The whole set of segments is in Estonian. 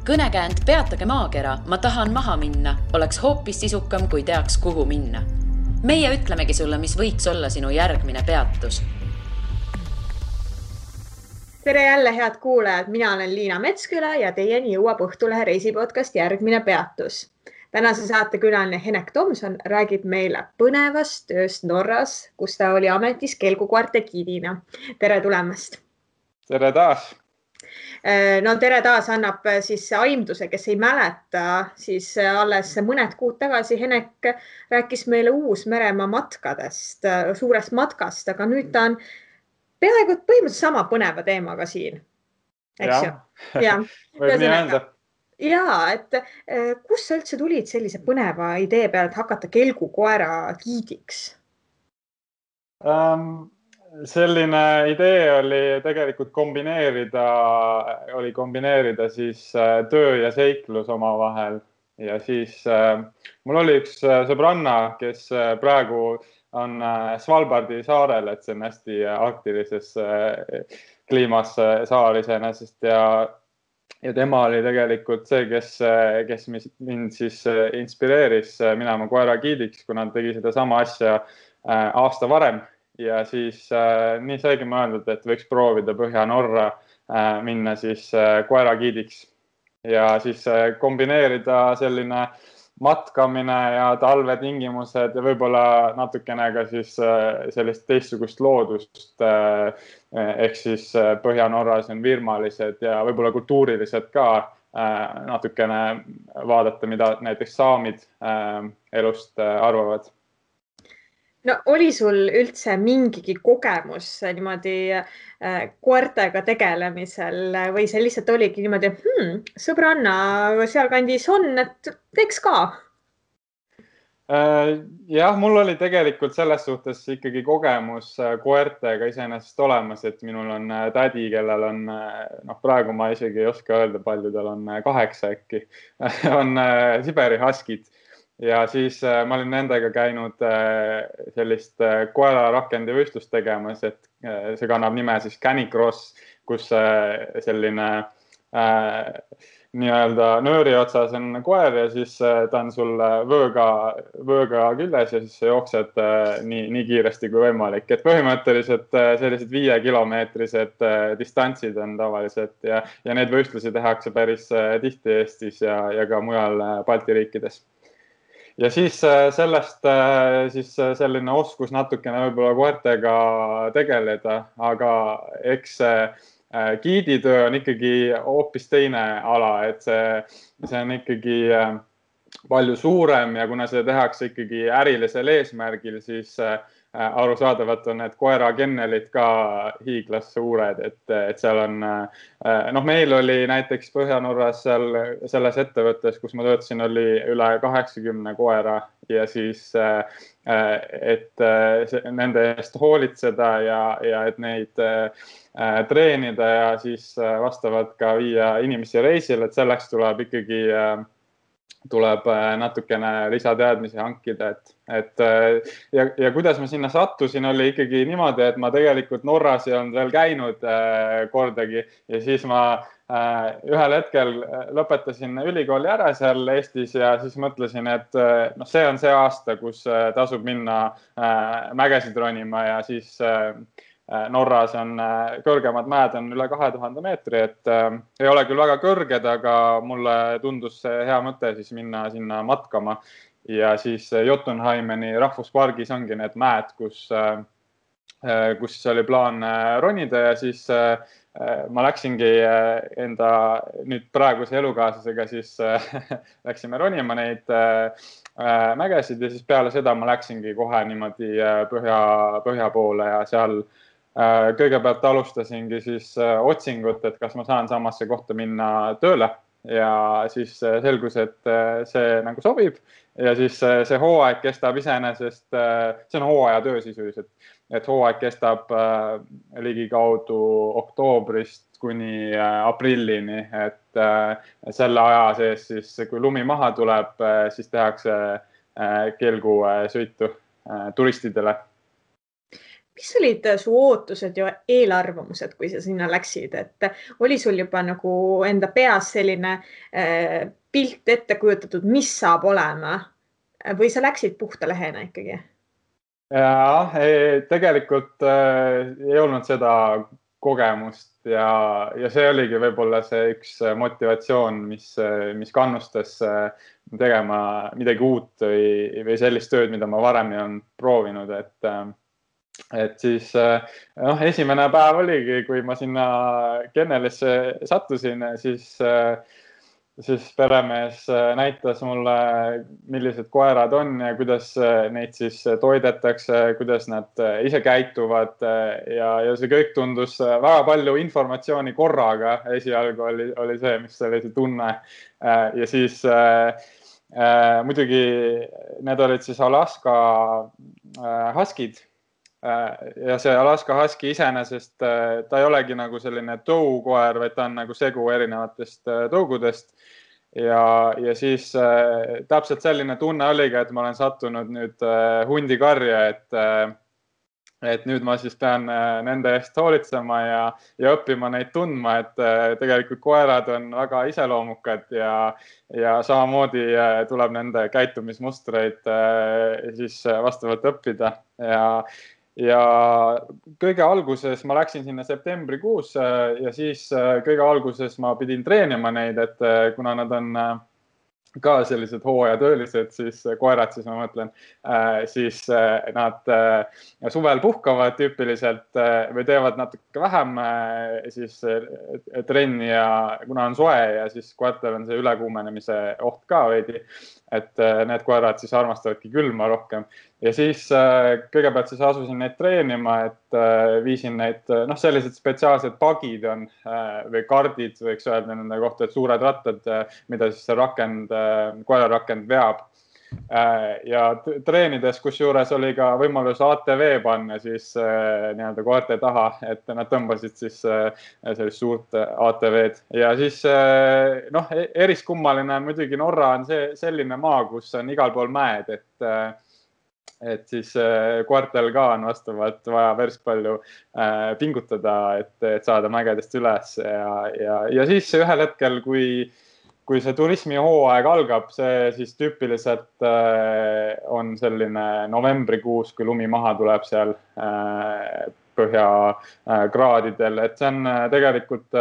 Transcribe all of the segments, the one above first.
Kõnekäänd Peatage maakera, ma tahan maha minna, oleks hoopis sisukam, kui teaks, kuhu minna. Meie ütlemegi sulle, mis võiks olla sinu järgmine peatus. Tere jälle, head kuulajad. Mina olen Liina Metsküla ja teieni jõuab Õhtulehe reisipodcast Järgmine peatus. Tänase saate külaline Henek Tomson räägib meile põnevast tööst Norras, kus ta oli ametis kelgukoerte giidina. Tere tulemast! Tere taas! No tere taas annab siis aimduse, kes ei mäleta, siis alles mõned kuud tagasi Henek rääkis meile Uus-Meremaa matkadest, suurest matkast, aga nüüd ta on peaaegu põhimõtteliselt sama põneva teemaga siin. Eks ju? Võib nii öelda. Jaa, et kus sa üldse tulid sellise põneva idee peale, et hakata kelgukoera giidiks? Selline idee oli tegelikult kombineerida siis töö ja seiklus omavahel. Ja siis mul oli üks sõbranna, kes praegu on Svalbardi saarel, et see on hästi arktilises kliimas saar iseenesest ja tema oli tegelikult see, kes mind siis inspireeris minema koera giidiks, kuna ta tegi seda sama asja aasta varem ja siis nii saigi mõeldud, et võiks proovida Põhja-Norra minna siis koera giidiks ja siis kombineerida selline matkamine ja talvetingimused ja võib-olla natukene ka siis sellist teistsugust loodust ehk siis Põhja-Norras on virmalised ja võib-olla kultuurilised ka natukene vaadata, mida näiteks saamid elust arvavad. No oli sul üldse mingigi kogemus niimoodi koertega tegelemisel või see lihtsalt oligi niimoodi, sõbranna sealkandis on, et teeks ka? Jah, mul oli tegelikult selles suhtes ikkagi kogemus koertega iseenesest olemas, et minul on tädi, kellel on, praegu ma isegi ei oska öelda, palju tal on 8 äkki, on Siberi Huskid. Ja siis ma olin nendega käinud sellist koerarakendi võistlust tegemas, et see kannab nime siis Canicross, kus selline nii-öelda nööri otsas on koer ja siis ta on sul vööga küljes ja siis sa jooksed nii kiiresti kui võimalik. Et põhimõtteliselt sellised 5-kilomeetrised distantsid on tavaliselt ja need võistlusi tehakse päris tihti Eestis ja ka mujal Balti riikides. Ja siis sellest siis selline oskus natukene võib-olla koertega tegeleda, aga eks giiditöö on ikkagi hoopis teine ala, et see on ikkagi palju suurem ja kuna see tehakse ikkagi ärilisel eesmärgil, siis arusaadavalt on need koerakennelit ka hiiglas suured, et seal on, meil oli näiteks Põhja-Norras selles ettevõttes, kus ma töötasin, oli üle 80 koera ja siis, et nende eest hoolitseda ja et neid treenida ja siis vastavalt ka viia inimesi reisile, et selleks tuleb natukene lisateadmisi hankida, ja kuidas ma sinna sattusin, oli ikkagi niimoodi, et ma tegelikult Norras ei olnud veel käinud kordagi ja siis ma ühel hetkel lõpetasin ülikooli ära seal Eestis ja siis mõtlesin, et see on see aasta, kus tasub minna mägesid ronima ja siis Norras on kõrgemad mäed on üle 2000 meetri, et ei ole küll väga kõrged, aga mulle tundus see hea mõte siis minna sinna matkama ja siis Jotunheimeni rahvuspargis ongi need mäed, kus oli plaan ronida ja siis ma läksingi enda nüüd praeguse elukaaslasega siis läksime ronima neid mägesid ja siis peale seda ma läksingi kohe niimoodi põhja poole ja seal kõigepealt alustasingi siis otsingut, et kas ma saan samasse kohta minna tööle ja siis selgus, et see nagu sobib ja siis see hooaeg kestab iseenesest, see on hooajatöö sisuliselt, et hooaeg kestab ligikaudu oktoobrist kuni aprillini, et selle aja sees siis, kui lumi maha tuleb, siis tehakse kelgusõitu turistidele. mis olid su ootused ja eelarvamused, kui sa sinna läksid, et oli sul juba nagu enda peas selline pilt ette kujutatud, mis saab olema või sa läksid puhta lehena ikkagi? Ja tegelikult ei olnud seda kogemust ja see oligi võib-olla see üks motivatsioon, mis kannustas tegema midagi uut või sellist tööd, mida ma varem ei olnud proovinud, et siis esimene päev oligi, kui ma sinna Kennelisse sattusin, siis peremees näitas mulle, millised koerad on ja kuidas neid siis toidetakse, kuidas nad ise käituvad ja see kõik tundus väga palju informatsiooni korraga. Esialgu oli see, mis oli see tunne. Ja siis muidugi need olid siis Alaska Huskid. Ja see Alaska Husky iseenesest, ta ei olegi nagu selline tõukoer, vaid ta on nagu segu erinevatest tõugudest. Ja siis täpselt selline tunne oligi, et ma olen sattunud nüüd hundikarja, et nüüd ma siis pean nende eest hoolitsema ja õppima neid tundma, et tegelikult koerad on väga iseloomukad ja samamoodi tuleb nende käitumismustreid siis vastavalt õppida. Ja kõige alguses ma läksin sinna septembrikuus ja siis kõige alguses ma pidin treenima neid, et kuna nad on ka sellised hooajatöölised, siis koerad, siis ma mõtlen, siis nad suvel puhkavad tüüpiliselt või teevad natuke vähem siis trenni ja kuna on soe ja siis koertel on see ülekuumenemise oht ka veidi, et need koerad siis armastavadki külma rohkem. Ja siis kõigepealt siis asusin neid treenima, et viisin neid, sellised spetsiaalsed pagid on või kardid, võiks öelda nende kohta, et suured rattad, mida siis see koerarakend veab. Ja treenides, kus juures oli ka võimalus ATV panna siis nii-öelda koerte taha, et nad tõmbasid siis sellist suurt ATV-d. Ja siis eriskummaline on muidugi Norra on selline maa, kus on igal pool mäed, et siis koertel ka on vastavalt vaja päris palju pingutada, et saada mägedest üles. Ja siis ühel hetkel, kui see turismihooaeg algab, see siis tüüpiliselt on selline novembrikuus, kui lumi maha tuleb seal põhjakraadidel, et see on tegelikult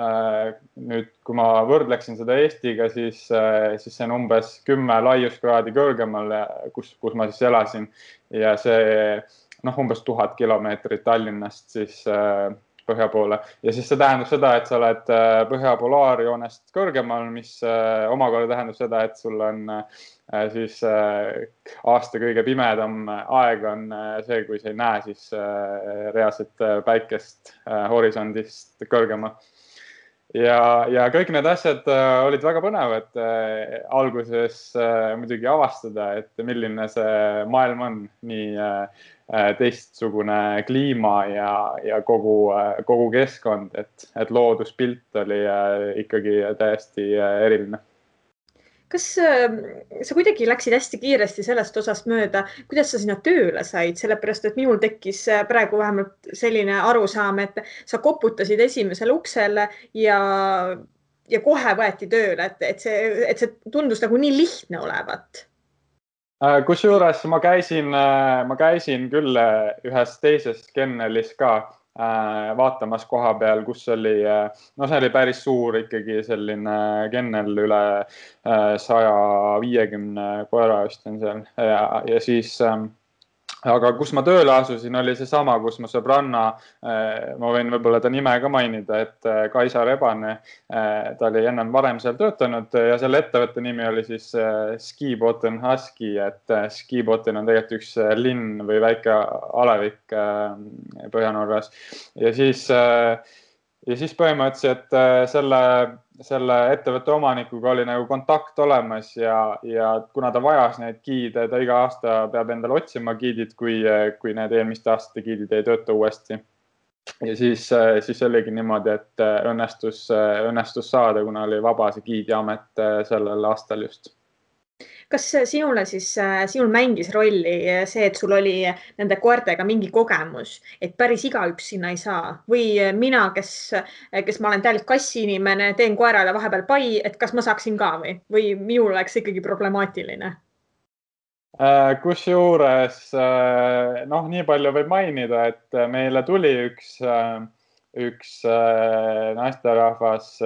nüüd, kui ma võrdleksin seda Eestiga, siis see on umbes 10 laiuskraadi kõrgemal, kus ma siis elasin ja see umbes 1000 kilomeetrit Tallinnast siis põhja poole. Ja siis see tähendab seda, et sa oled põhja polaarjoonest kõrgemal, mis omakorda tähendab seda, et sul on siis aasta kõige pimedam aeg on see, kui sa ei näe siis reaalset päikest horisondist kõrgemal. Ja kõik need asjad olid väga põnevad alguses muidugi avastada, et milline see maailm on, nii teistsugune kliima ja kogu keskkond, et looduspilt oli ikkagi täiesti eriline. Kas sa kuidagi läksid hästi kiiresti sellest osast mööda, kuidas sa sinna tööle said, sellepärast, et minul tekkis praegu vähemalt selline arusaam, et sa koputasid esimesele uksele ja kohe võeti tööle, et see tundus nagu nii lihtne olevat. Kusjuures ma käisin küll ühes teises kennelis ka vaatamas koha peal, kus oli, see oli päris suur ikkagi selline kennel, üle 150 koera vist on seal ja siis, aga kus ma tööle asusin, oli seesama, kus ma sõbranna, ma võin võib-olla ta nime ka mainida, et Kaisa Rebane, ta oli ennem varem seal töötanud ja selle ettevõtte nimi oli siis Skibotten Husky, et Skibotten on tegelikult üks linn või väike alevik Põhja-Norras. Ja siis põhimõtteliselt selle ettevõtte omanikuga oli nagu kontakt olemas ja kuna ta vajas neid giide, ta iga aasta peab endale otsima giidid, kui need eelmiste aastate giidid ei tööta uuesti. Ja siis oligi niimoodi, et õnnestus saada, kuna oli vaba see giidiamet sellel aastal just. Kas sinul mängis rolli see, et sul oli nende koertega mingi kogemus, et päris igaüks sinna ei saa või mina, kes ma olen täielikult kassiinimene, teen koerale vahepeal pai, et kas ma saaksin ka või minul oleks ikkagi problemaatiline? Kusjuures, nii palju võib mainida, et meile tuli üks naisterahvas,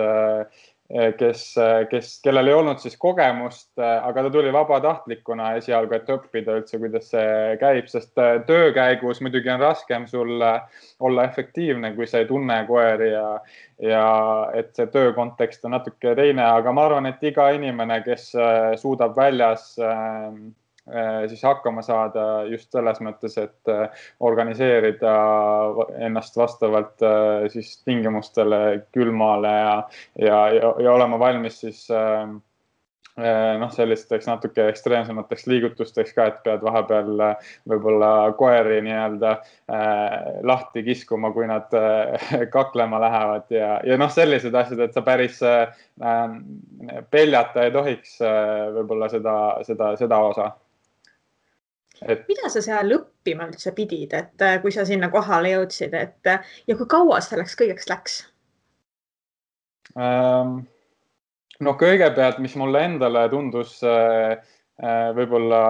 kellel ei olnud siis kogemust, aga ta tuli vabatahtlikuna esialgu, et õppida üldse, kuidas see käib, sest töö käigus muidugi on raskem sul olla efektiivne, kui sa ei tunne koeri ja et see töö kontekst on natuke teine, aga ma arvan, et iga inimene, kes suudab väljas siis hakkama saada just selles mõttes, et organiseerida ennast vastavalt siis tingimustele külmale ja olema valmis siis sellisteks natuke ekstreemsemateks liigutusteks ka, et pead vahepeal võib-olla koeri nii-öelda lahti kiskuma, kui nad kaklema lähevad ja sellised asjad, et sa päris peljata ei tohiks võib-olla seda osa. Mida sa seal õppima üldse pidid, et kui sa sinna kohale jõudsid, ja kui kaua selleks kõigeks läks? Kõigepealt, mis mulle endale tundus võib-olla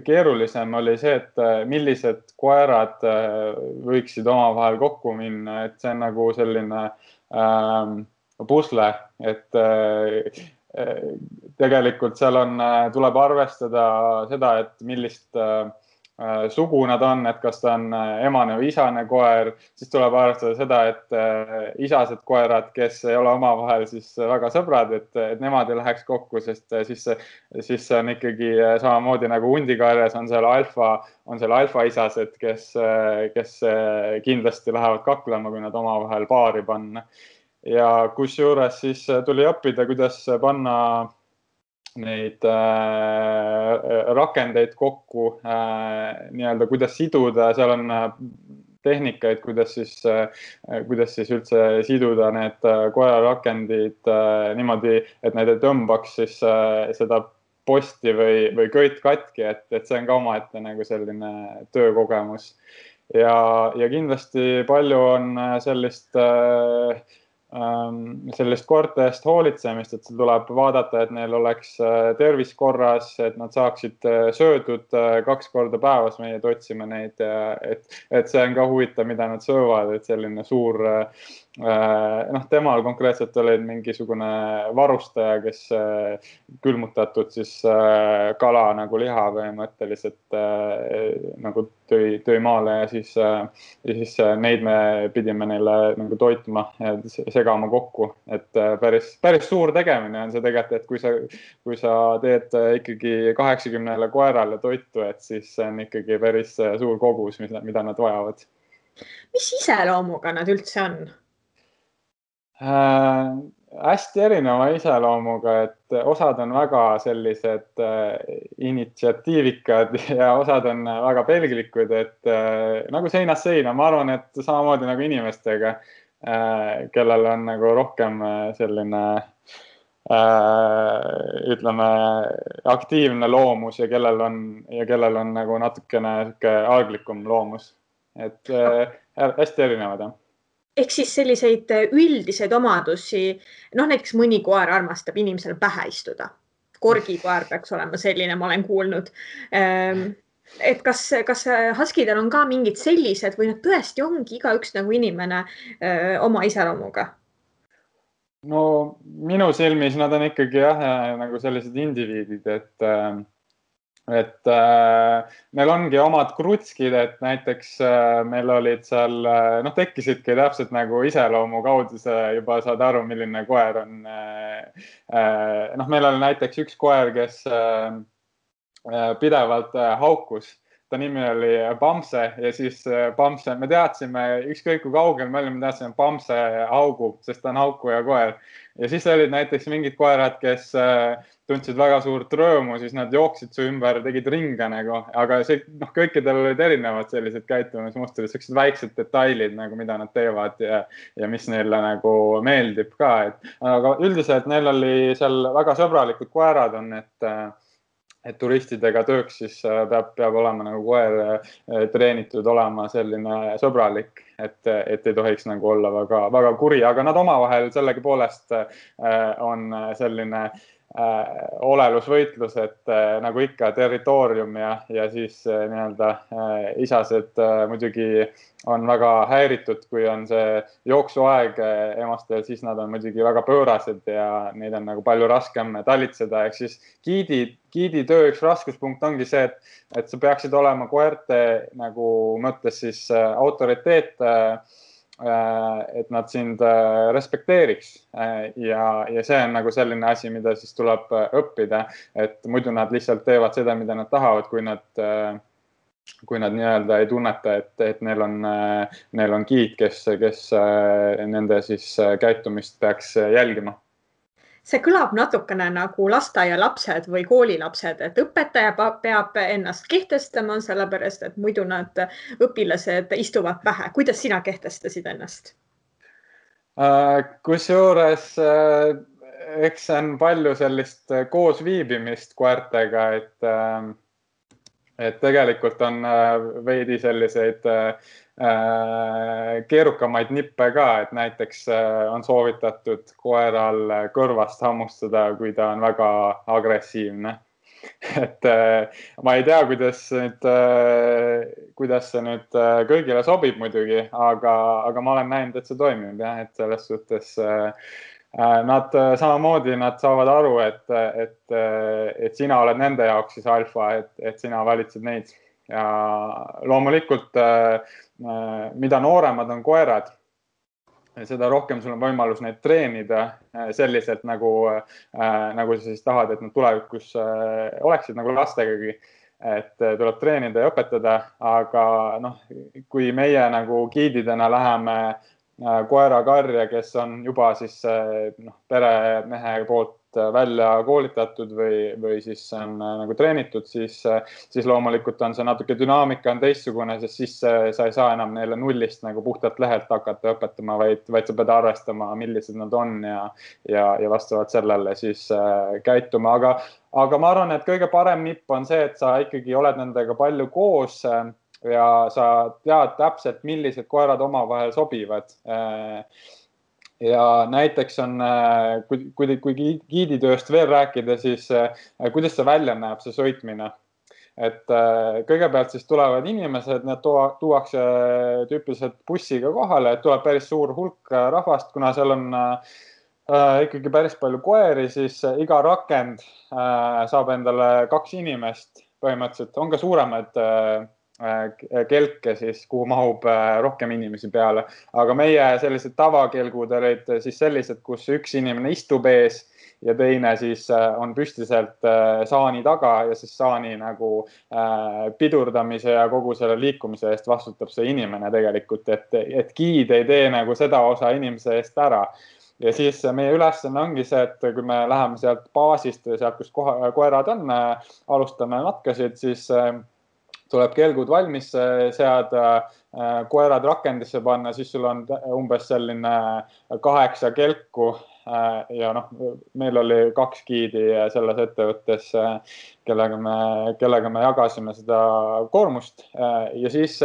keerulisem, oli see, et millised koerad võiksid omavahel kokku minna, et see on nagu selline pusle, et tegelikult seal tuleb arvestada seda, et millist sugu nad on, et kas ta on emane või isane koer, siis tuleb arvestada seda, et isased koerad, kes ei ole omavahel siis väga sõbrad, et nemad ei läheks kokku, sest siis see on ikkagi samamoodi nagu hundikarjas on seal alfa isased, kes kindlasti lähevad kaklema, kui nad omavahel paari panna. Ja kusjuures siis tuli õppida, kuidas panna neid rakendeid kokku, nii-öelda kuidas siduda, seal on tehnikaid, kuidas siis üldse siduda need koerarakendid niimoodi, et need ei tõmbaks siis seda posti või köit katki, et see on ka omaette nagu selline töökogemus. Ja kindlasti palju on sellist koerte eest hoolitsemist, et tuleb vaadata, et neil oleks tervis korras, et nad saaksid söödud 2 korda päevas, meie otsime neid, et see on ka huvitav, mida nad söövad, et selline suur, temal konkreetselt oli mingisugune varustaja, kes külmutatud siis kala nagu liha põhimõtteliselt nagu tõi maale ja siis neid me pidime neile nagu toitma ja segama kokku, et päris suur tegemine on see tegelikult, et kui sa teed ikkagi 80 koerale toitu, et siis see on ikkagi päris suur kogus, mida nad vajavad. Mis iseloomuga nad üldse on? Hästi erineva iseloomuga, et osad on väga sellised initsiatiivikad ja osad on väga pelglikud, et nagu seinast seina, ma arvan, et samamoodi nagu inimestega, kellel on nagu rohkem selline ütleme aktiivne loomus ja kellel on nagu natukene alglikum loomus, et hästi erinevad, jah. Ehk siis selliseid üldiseid omadusi, näiteks mõni koer armastab inimesele pähe istuda. Korgikoer peaks olema selline, ma olen kuulnud. Et kas huskidel on ka mingid sellised või nad tõesti ongi igaüks nagu inimene oma iseloomuga? Minu silmis nad on ikkagi nagu sellised indiviidid, et meil ongi omad krutskid, et näiteks meil olid seal, tekkisidki täpselt nagu iseloomu kaudu, sa juba saad aru, milline koer on. Meil oli näiteks üks koer, kes pidevalt haukus ta nimi oli Bamse ja siis Bamse, me teadsime, ükskõik kui kaugel me olime, me teadsime Bamse haugub, sest ta on haukuja koer. Ja siis olid näiteks mingid koerad, kes tundsid väga suurt rõõmu, siis nad jooksid su ümber, tegid ringe nagu, aga see, kõikidel olid erinevad sellised käitumismustrid, sellised väiksed detailid nagu, mida nad teevad ja mis neile nagu meeldib ka. Aga üldiselt neil oli seal väga sõbralikud koerad on, et turistidega tööks siis peab olema nagu koer treenitud olema selline sõbralik, et ei tohiks nagu olla väga kuri, aga nad omavahel sellegipoolest on selline olelusvõitlus, et nagu ikka territoorium ja siis nii-öelda isased muidugi on väga häiritud, kui on see jooksuaeg emastel, siis nad on muidugi väga pöörased ja neid on nagu palju raskem talitseda. Ehk siis giidi töö üks raskuspunkt ongi see, et sa peaksid olema koerte nagu mõttes siis autoriteet, et nad sind respekteeriks ja see on nagu selline asi, mida siis tuleb õppida, et muidu nad lihtsalt teevad seda, mida nad tahavad, kui nad nii-öelda ei tunneta, et neil on giid, kes nende siis käitumist peaks jälgima. See kõlab natukene nagu lasteaialapsed või koolilapsed, et õpetaja peab ennast kehtestama, sellepärast, et muidu nad õpilased istuvad pähe. Kuidas sina kehtestasid ennast? Kusjuures eks see on palju sellist koosviibimist koertega, et tegelikult on veidi selliseid keerukamaid nippe ka, et näiteks on soovitatud koeral kõrvast hammustada, kui ta on väga agressiivne. Et ma ei tea, kuidas see nüüd kõigile sobib muidugi, aga ma olen näinud, et see toimib jah, et selles suhtes nad samamoodi nad saavad aru, et sina oled nende jaoks siis alfa, et sina valitsed neid. Ja loomulikult, mida nooremad on koerad, seda rohkem sul on võimalus neid treenida selliselt, nagu sa siis tahad, et nad tulevikus oleksid nagu lastegagi, et tuleb treenida ja õpetada, aga kui meie nagu giididena läheme koerakarja, kes on juba siis peremehe poolt välja koolitatud või siis on nagu treenitud, siis loomulikult on see natuke dünaamika on teistsugune, sest siis sa ei saa enam neile nullist nagu puhtalt lehelt hakata õpetama, vaid sa pead arvestama, millised nad on ja vastavalt sellele siis käituma. Aga ma arvan, et kõige parem nipp on see, et sa ikkagi oled nendega palju koos ja sa tead täpselt, millised koerad omavahel sobivad. Ja näiteks on, kui giiditööst veel rääkida, siis kuidas see välja näeb, see sõitmine. Et kõigepealt siis tulevad inimesed, need tuuakse tüüpiliselt bussiga kohale, et tuleb päris suur hulk rahvast, kuna seal on ikkagi päris palju koeri, siis iga rakend saab endale 2 inimest põhimõtteliselt, on ka suuremad kelke siis, kuhu mahub rohkem inimesi peale. Aga meie sellised tavakelgud olid siis sellised, kus üks inimene istub ees ja teine siis on püstiselt saani taga ja siis saani nagu pidurdamise ja kogu selle liikumise eest vastutab see inimene tegelikult, et giid ei tee nagu seda osa inimese eest ära. Ja siis meie ülesanne ongi see, et kui me läheme sealt baasist või sealt, kus koerad on, alustame matkasid, siis tuleb kelgud valmis seada, koerad rakendisse panna, siis sul on umbes selline 8 kelku ja meil oli 2 giidi selles ettevõttes, kellega me jagasime seda koormust ja siis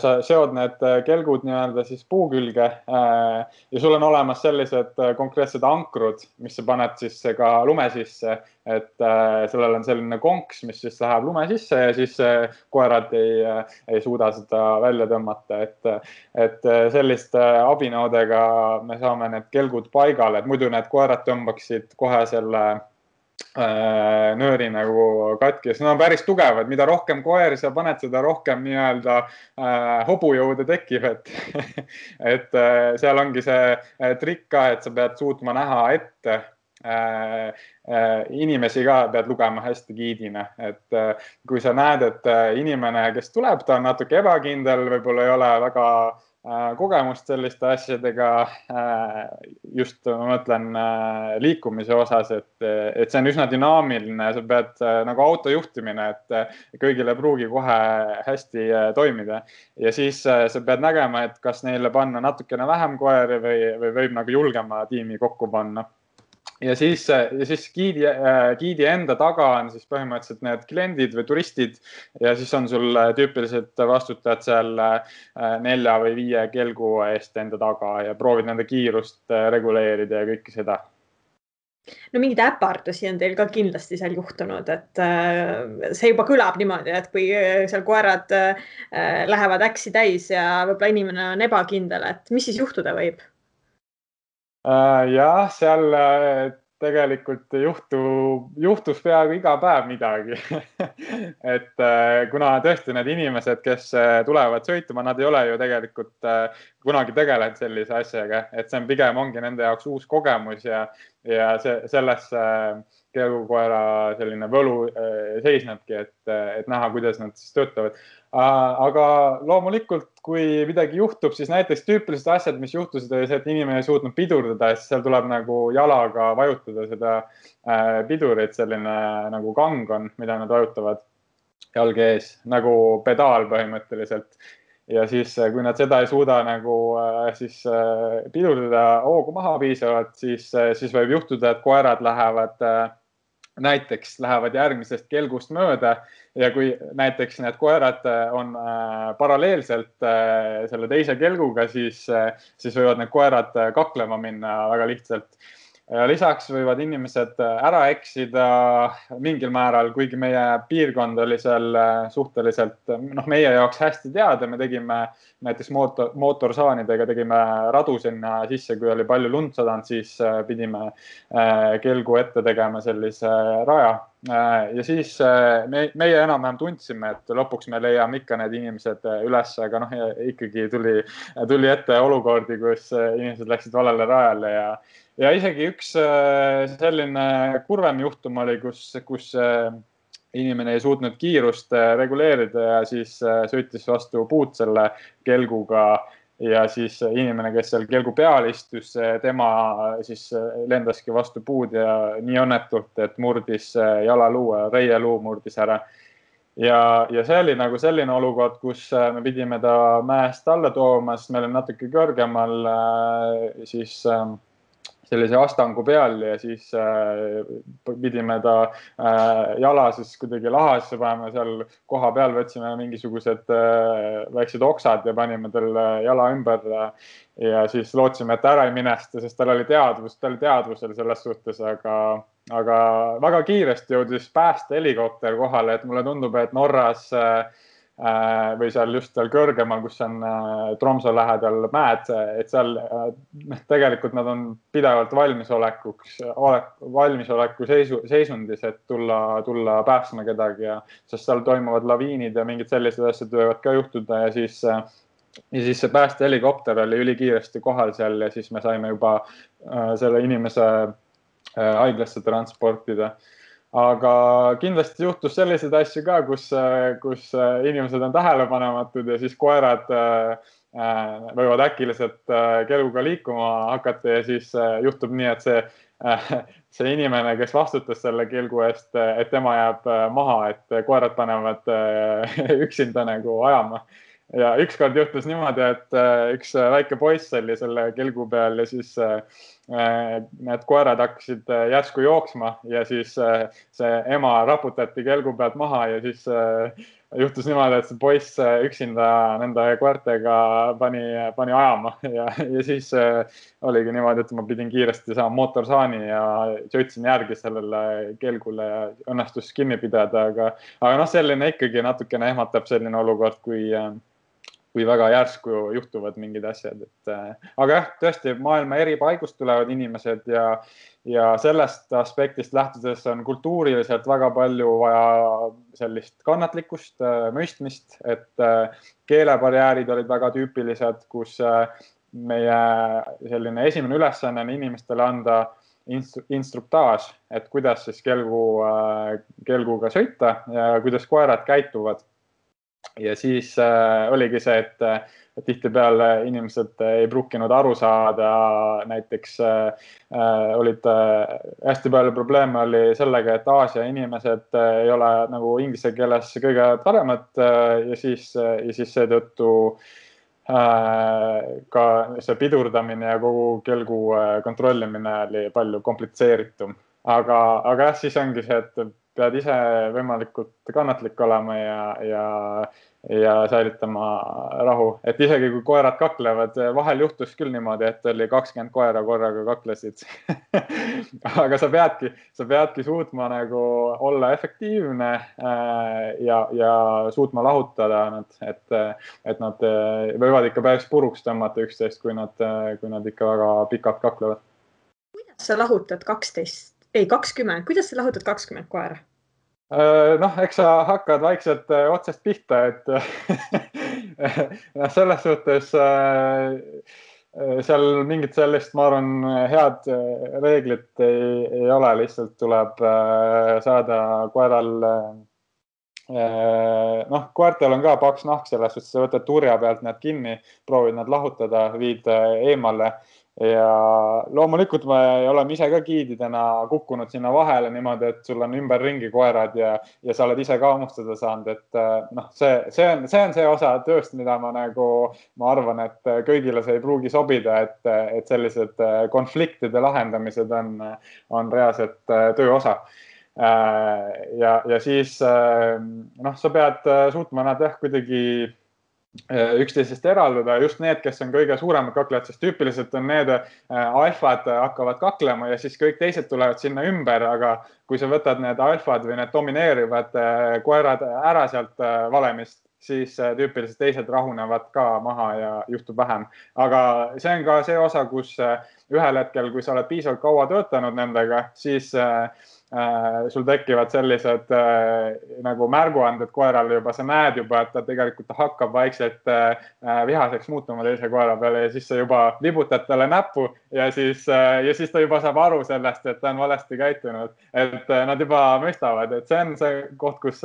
sa seod need kelgud nii-öelda siis puu külge ja sul on olemas sellised konkreetsed ankrud, mis sa paned siis ka lume sisse, et sellel on selline konks, mis siis läheb lume sisse ja siis koerad ei suuda seda välja tõmmata, et selliste abinõudega me saame need kelgud paigale, et muidu need koerad tõmbaksid kohe selle nööri nagu katki, sest nad on päris tugevad, mida rohkem koeri sa paned, seda rohkem nii-öelda hobujõude tekib, et seal ongi see trikk ka, et sa pead suutma näha ette, inimesi ka pead lugema hästi giidina, et kui sa näed, et inimene, kes tuleb, ta on natuke ebakindel, võib-olla ei ole väga kogemust selliste asjadega, just ma mõtlen liikumise osas, et see on üsna dünaamiline, sa pead nagu autojuhtimine, et kõigile pruugi kohe hästi toimida. Ja siis sa pead nägema, et kas neile panna natukene vähem koeri või võib nagu julgema tiimi kokku panna. Ja siis giidi enda taga on siis põhimõtteliselt need kliendid või turistid ja siis on sul tüüpiliselt vastutajad seal 4 või 5 kelgu eest enda taga ja proovid nende kiirust reguleerida ja kõike seda. No mingid äpardusi on teil ka kindlasti seal juhtunud, et see juba kõlab niimoodi, et kui seal koerad lähevad äksi täis ja võib-olla inimene on ebakindel, et mis siis juhtuda võib? Jah, seal tegelikult juhtus peaaegu iga päev midagi. Et kuna tõesti need inimesed, kes tulevad sõituma, nad ei ole ju tegelikult kunagi tegelenud sellise asjaga, et see on pigem ongi nende jaoks uus kogemus ja selles kelgukoera selline võlu seisnebki, et näha, kuidas nad siis töötavad. Aga loomulikult, kui midagi juhtub, siis näiteks tüüpilised asjad, mis juhtusid, oli see, et inimene ei suutnud pidurdada, siis seal tuleb nagu jalaga vajutada seda pidurit, selline nagu kang on, mida nad vajutavad jalge ees, nagu pedaal põhimõtteliselt. Ja siis, kui nad seda ei suuda nagu siis pidurdada hoogu maha piisavalt, siis võib juhtuda, et koerad lähevad järgmisest kelgust mööda ja kui näiteks need koerad on paralleelselt selle teise kelguga, siis võivad need koerad kaklema minna väga lihtsalt. Lisaks võivad inimesed ära eksida mingil määral, kuigi meie piirkond oli seal suhteliselt meie jaoks hästi teada. Me tegime näiteks mootorsaanidega tegime radu sinna sisse, kui oli palju lund sadanud, siis pidime kelgu ette tegema sellise raja. Ja siis meie enam-vähem tundsime, et lõpuks me leiame ikka need inimesed üles, aga ikkagi tuli ette olukordi, kus inimesed läksid valele rajale ja isegi üks selline kurvem juhtum oli, kus inimene ei suutnud kiirust reguleerida ja siis sõitis vastu puud selle kelguga ja siis inimene, kes seal kelgu peal istus, tema siis lendaski vastu puud ja nii õnnetult, et murdis jalaluu, reieluu murdis ära. Ja see oli nagu selline olukord, kus me pidime ta mäest alla tooma, sest meil on natuke kõrgemal siis sellise astangu peal ja siis pidime ta jala siis kuidagi lahasse panema seal koha peal, võtsime mingisugused väiksed oksad ja panime tal jala ümber ja siis lootsime, et ära ei minesta, sest tal oli teadvusel selles suhtes, aga väga kiiresti jõudis päästehelikopter kohale, et mulle tundub, et Norras või seal just seal kõrgemal, kus on Tromso lähedal mäed, et seal tegelikult nad on pidevalt valmisoleku seisundis, et tulla päästma kedagi, sest seal toimuvad laviinid ja mingid sellised asjad võivad ka juhtuda ja siis see päästehelikopter oli ülikiiresti kohal seal ja siis me saime juba selle inimese haiglasse transportida. Aga kindlasti juhtus selliseid asju ka, kus inimesed on tähelepanematud ja siis koerad võivad äkiliselt kelguga liikuma hakata ja siis juhtub nii, et see inimene, kes vastutas selle kelgu eest, et tema jääb maha, et koerad panevad üksinda nagu ajama. Ja ükskord juhtus niimoodi, et üks väike poiss oli selle kelgu peal ja siis need koerad hakkasid järsku jooksma ja siis see ema raputati kelgu pealt maha ja siis juhtus niimoodi, et see poiss üksinda nende koertega pani ajama ja siis oligi niimoodi, et ma pidin kiiresti saama mootorsaani ja sõitsin järgi sellele kelgule ja õnnestus kinni pidada, aga selline ikkagi natukene ehmatab selline olukord, kui väga järsku juhtuvad mingid asjad. Aga jah, tõesti maailma eri paigust tulevad inimesed ja sellest aspektist lähtudes on kultuuriliselt väga palju vaja sellist kannatlikkust, mõistmist, et keelebarjäärid olid väga tüüpilised, kus meie selline esimene ülesanne on inimestele anda instruktaaž, et kuidas siis kelguga sõita ja kuidas koerad käituvad. Ja siis oligi see, et tihtipeale inimesed ei pruukinud aru saada, näiteks olid hästi palju probleeme oli sellega, et Aasia inimesed ei ole nagu inglise keeles kõige paremad ja siis seetõttu ka see pidurdamine ja kogu kelgu kontrollimine oli palju komplitseeritum. Aga jah, siis ongi see, et pead ise võimalikult kannatlik olema ja säilitama rahu. Et isegi kui koerad kaklevad, vahel juhtus küll niimoodi, et oli 20 koera korraga kaklesid. Aga sa peadki suutma nagu olla efektiivne ja suutma lahutada nad, et nad võivad ikka päris puruks tõmmata üksteist, kui nad ikka väga pikalt kaklevad. Kuidas sa lahutad 20, kuidas sa lahutad 20 koera? Eks sa hakkad vaikselt otsest pihta, et selles suhtes seal mingit sellist, ma arvan, head reeglit ei ole, lihtsalt tuleb saada koeral, koertel on ka paks nahk selles suhtes, sa võtad turja pealt nad kinni, proovid nad lahutada, viid eemale. Ja loomulikult me oleme ise ka giididena kukkunud sinna vahele niimoodi, et sul on ümber ringi koerad ja sa oled ise ka hammustada saanud, et see on see osa tööst, mida ma arvan, et kõigile see ei pruugi sobida, et sellised konfliktide lahendamised on reaalselt töö osa. Ja siis sa pead suutma nad kuidagi üksteisest eraldada, just need, kes on kõige suuremad kaklejad, sest tüüpiliselt on need alfad hakkavad kaklema ja siis kõik teised tulevad sinna ümber, aga kui sa võtad need alfad või need domineerivad koerad ära sealt valemist, siis tüüpiliselt teised rahunevad ka maha ja juhtub vähem. Aga see on ka see osa, kus ühel hetkel, kui sa oled piisavalt kaua töötanud nendega, siis sul tekivad sellised nagu märguanded koerale juba, sa näed juba, et ta tegelikult hakkab vaikselt vihaseks muutuma teise koera peale ja siis sa juba vibutad talle näppu ja siis ta juba saab aru sellest, et ta on valesti käitunud, et nad juba mõistavad, et see on see koht, kus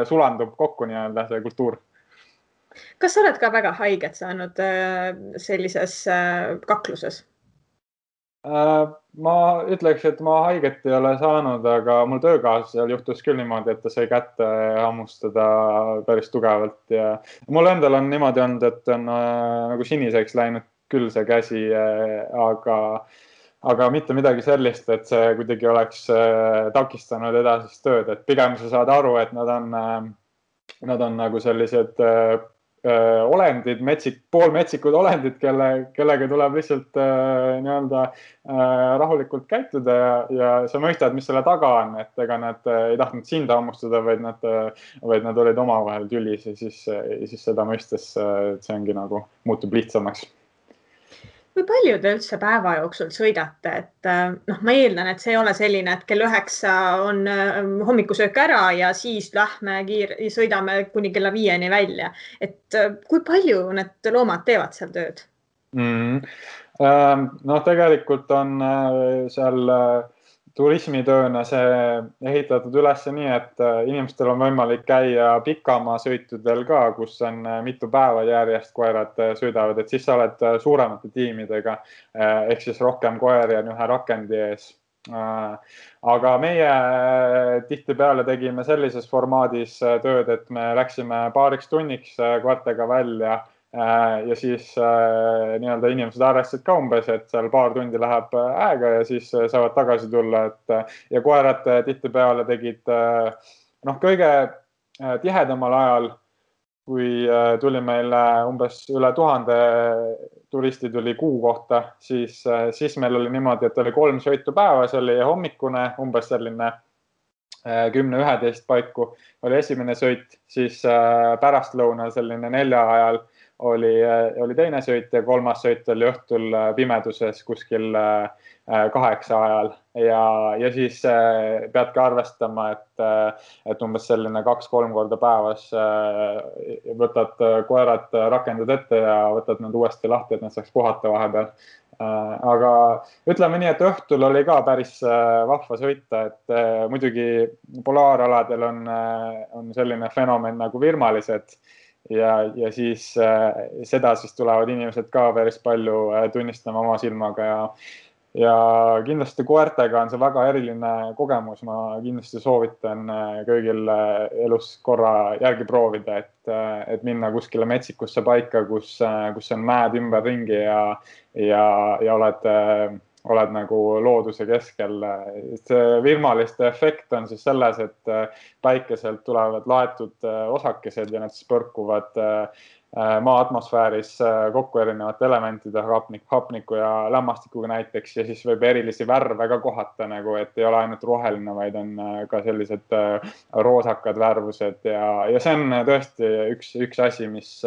sulandub kokku nii-öelda see kultuur. Kas sa oled ka väga haiget saanud sellises kakluses? Ma ütleks, et ma haiget ei ole saanud, aga mul töökaaslasel juhtus küll niimoodi, et ta sai kätte hammustada päris tugevalt ja mul endal on niimoodi olnud, et on nagu siniseks läinud küll see käsi, aga mitte midagi sellist, et see kuidagi oleks takistanud edasist tööd, et pigem sa saad aru, et nad on nagu sellised olendid, poolmetsikud olendid, kellega tuleb lihtsalt nii-öelda rahulikult käituda ja sa mõistad, mis selle taga on, et ega nad ei tahtnud sind hammustada, vaid nad olid omavahel tülis ja siis seda mõistes see ongi nagu muutub lihtsamaks. Kui palju te üldse päeva jooksul sõidate, et ma eeldan, et see ei ole selline, et kell 9 on hommikusöök ära ja siis lähme sõidame kuni kella 5 välja. Et kui palju need loomad teevad seal tööd? Tegelikult on seal turismitööna see ehitatud üles nii, et inimestel on võimalik käia pikamaa sõitudel ka, kus on mitu päeva järjest koerad sõidavad, et siis sa oled suuremate tiimidega, ehk siis rohkem koeri on ühe rakendi ees. Aga meie tihtipeale tegime sellises formaadis tööd, et me läksime paariks tunniks koertega välja ja siis nii-öelda inimesed arvestasid ka umbes, et seal paar tundi läheb aega ja siis saavad tagasi tulla, ja koerad tihtipeale tegid kõige tihedamal ajal, kui tuli meil umbes üle 1000 turisti tuli kuu kohta, siis meil oli niimoodi, et oli 3 sõitu päevas, oli hommikune umbes selline 10-11 paiku oli esimene sõit, siis pärastlõunal selline 4 ajal oli teine sõit ja 3. sõit oli õhtul pimeduses kuskil 8 ajal ja siis peadki arvestama, et umbes selline 2-3 korda päevas võtad koerad rakendad ette ja võtad nad uuesti lahti, et nad saaks puhata vahepeal. Aga ütleme nii, et õhtul oli ka päris vahva sõita, et muidugi polaaraladel on selline fenomen nagu virmalised ja siis seda siis tulevad inimesed ka päris palju tunnistama oma silmaga ja kindlasti koertega on see väga eriline kogemus. Ma kindlasti soovitan kõigil elus korra järgi proovida, et minna kuskile metsikusse paika, kus on mäed ümberringi ja oled nagu looduse keskel. See virmaliste efekt on siis selles, et päikeselt tulevad laetud osakesed ja need siis põrkuvad maa atmosfääris kokku erinevate elementide, hapniku ja lämmastikuga näiteks, ja siis võib erilisi värve ka kohata, nagu, et ei ole ainult roheline, vaid on ka sellised roosakad värvused ja see on tõesti üks asi, mis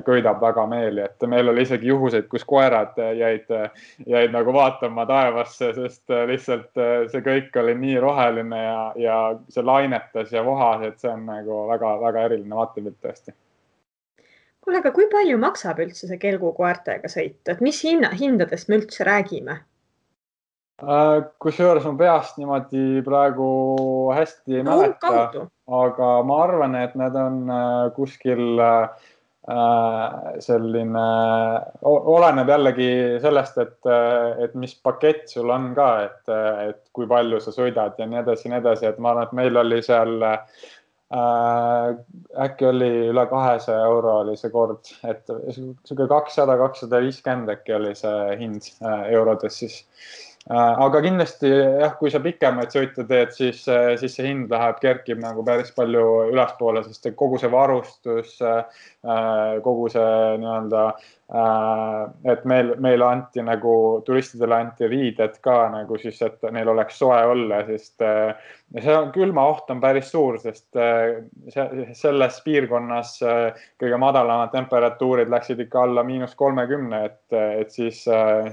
köidab väga meeli, et meil oli isegi juhuseid, kus koerad jäid nagu vaatama taevasse, sest lihtsalt see kõik oli nii roheline ja see lainetas ja vohas, et see on nagu väga eriline vaatepilt tõesti. Kuule, aga kui palju maksab üldse see kelgukoertega sõit? Et mis hindadest me üldse räägime? Kusjuures ma peast niimoodi praegu hästi ei mäleta, aga ma arvan, et need on kuskil selline, oleneb jällegi sellest, et mis pakett sul on ka, et kui palju sa sõidad ja nii edasi, et ma arvan, et meil oli seal äkki oli üle 200 euro oli see kord, et 200-250 äkki oli see hind eurodes siis. Aga kindlasti jah, kui sa pikemaid sõite teed, siis see hind kerkib nagu päris palju ülespoole, sest kogu see varustus, kogu see nii-öelda, et meil anti nagu, turistidele anti riided ka nagu siis, et neil oleks soe olla, sest see külma oht on päris suur, sest selles piirkonnas kõige madalamad temperatuurid läksid ikka alla -30, et siis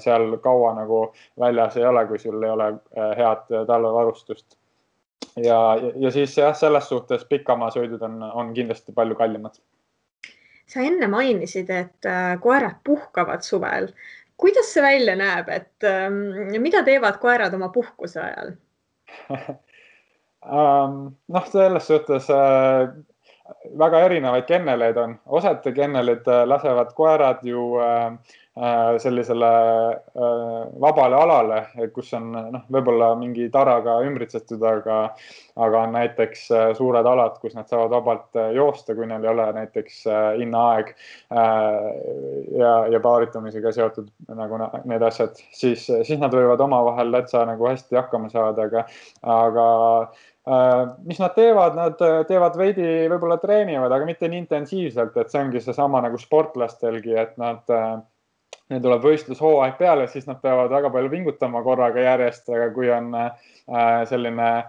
seal kaua nagu väljas ei ole, kui sul ei ole head talvevarustust. Ja siis jah, selles suhtes pikamaa sõidud on kindlasti palju kallimad. Sa enne mainisid, et koerad puhkavad suvel. Kuidas see välja näeb, et mida teevad koerad oma puhkuse ajal? Selles suhtes väga erinevaid kenneleid on. Osad kennelid lasevad koerad ju sellisele vabale alale, kus on võib-olla mingi taraga ümbritsetud, aga on näiteks suured alad, kus nad saavad vabalt joosta, kui neil ei ole näiteks innaaeg ja paaritumisega seotud nagu need asjad, siis nad võivad omavahel täitsa nagu hästi hakkama saada, aga mis nad teevad veidi võib-olla treenivad, aga mitte nii intensiivselt, et see ongi seesama nagu sportlastelgi, et neil tuleb võistlushooaeg peale, siis nad peavad väga palju pingutama korraga järjest, aga kui on selline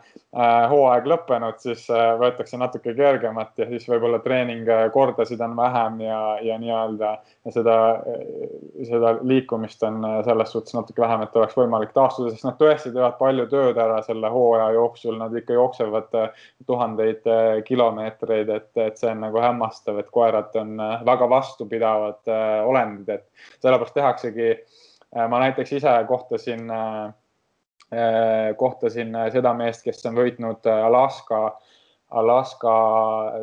hooaeg lõppenud, siis võetakse natuke kergemat ja siis võib-olla treeningkordasid on vähem ja nii-öelda seda liikumist on selles suhtes natuke vähem, et oleks võimalik taastuda, sest nad tõesti teevad palju tööd ära selle hooaja jooksul, nad ikka jooksevad tuhandeid kilomeetreid, et see on nagu hämmastav, et koerad on väga vastupidavad olendid, et sellepärast tehaksegi, ma näiteks ise kohtasin seda meest, kes on võitnud Alaska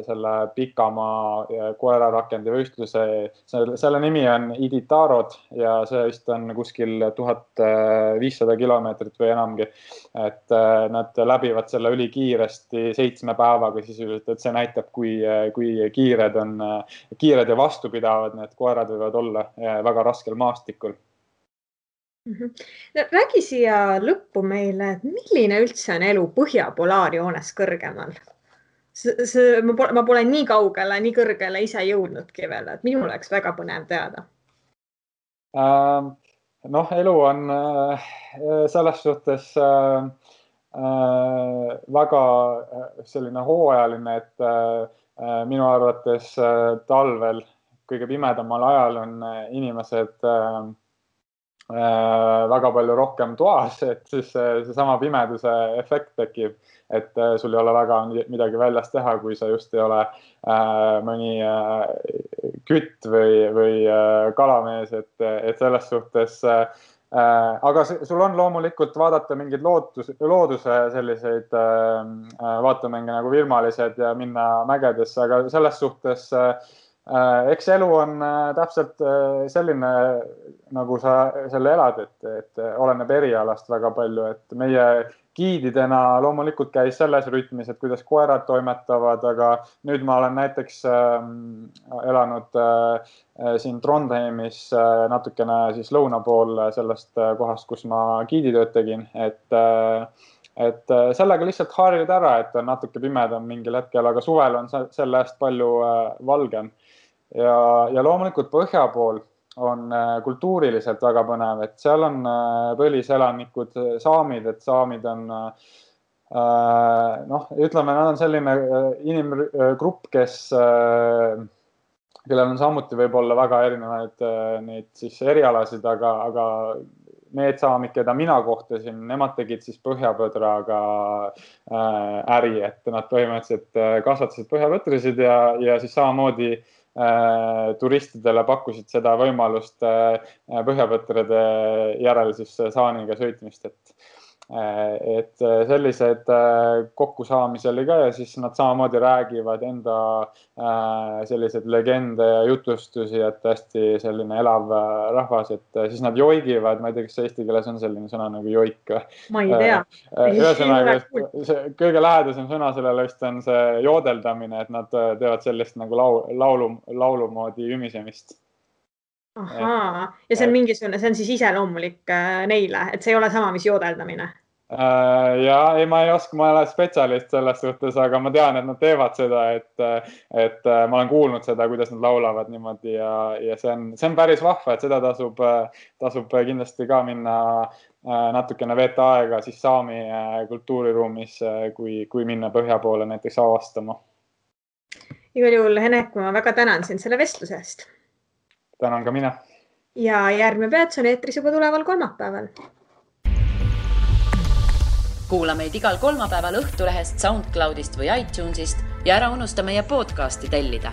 selle pikamaa koerarakendi võistluse. Selle nimi on Iditarod ja see vist on kuskil 1500 kilomeetrit või enamgi. Et nad läbivad selle ülikiiresti 7 päevaga sisuliselt, et see näitab, kui kiired ja vastupidavad need koerad võivad olla väga raskel maastikul. Räägi siia lõppu meile, et milline üldse on elu põhjapolaarjoones kõrgemal? Ma pole nii kaugele, nii kõrgele ise jõudnudki veel, et minul oleks väga põnev teada. Elu on selles suhtes väga selline hooajaline, et minu arvates talvel kõige pimedamal ajal on inimesed väga palju rohkem toas, et siis seesama pimeduse efekt tekib, et sul ei ole väga midagi väljas teha, kui sa just ei ole mõni kütt või kalamees, et selles suhtes. Aga sul on loomulikult vaadata mingeid looduse selliseid vaatamänge nagu virmalised ja minna mägedesse, aga selles suhtes eks elu on täpselt selline, nagu sa selle elad, et oleneb erialast väga palju, et meie giididena loomulikult käis selles rütmis, et kuidas koerad toimetavad, aga nüüd ma olen näiteks elanud siin Trondheimis natukene siis lõuna pool sellest kohast, kus ma giiditööd tegin, et sellega lihtsalt harjud ära, et on natuke pimedam mingil hetkel, aga suvel on selle eest palju valgem. Ja loomulikult põhja pool on kultuuriliselt väga põnev, et seal on põliselanikud saamid, et saamid on, ütleme, nad on selline inimgrupp, kellel on samuti võib-olla väga erinevaid neid siis erialasid, aga need saamid, keda mina kohtasin, nemad tegid siis põhjapõdraga äri, et nad põhimõtteliselt kasvatasid põhjapõtrisid ja siis samamoodi turistidele pakkusid seda võimalust põhjapõtrade järel siis saaniga sõitmist, et sellised kokkusaamisi oli ka ja siis nad samamoodi räägivad enda sellised legende ja jutustusi, et hästi selline elav rahvas, et siis nad joigivad, ma ei tea, kas eesti keeles on selline sõna nagu joik. Ma ei tea. Ühesõnaga, kõige lähedasem sõna sellele vist on see joodeldamine, et nad teevad sellist nagu laulu moodi ümisemist. Ahaa, ja see on mingisugune, see on siis iseloomulik neile, et see ei ole sama, mis joodeldamine. Ja ei, ma ei oska, ma ei ole spetsialist selles suhtes, aga ma tean, et nad teevad seda, et ma olen kuulnud seda, kuidas nad laulavad niimoodi ja see on päris vahva, et seda tasub kindlasti ka minna natukene veeta aega siis saami kultuuriruumis, kui minna põhja poole näiteks avastama. Igal juhul, Henek, ma väga tänan sind selle vestluse eest. Tänan ka mina. Ja järgmine peats on eetris juba tuleval kolmapäeval. Kuula meid igal kolmapäeval Õhtulehest, SoundCloudist või iTunesist ja ära unusta meie podcasti tellida.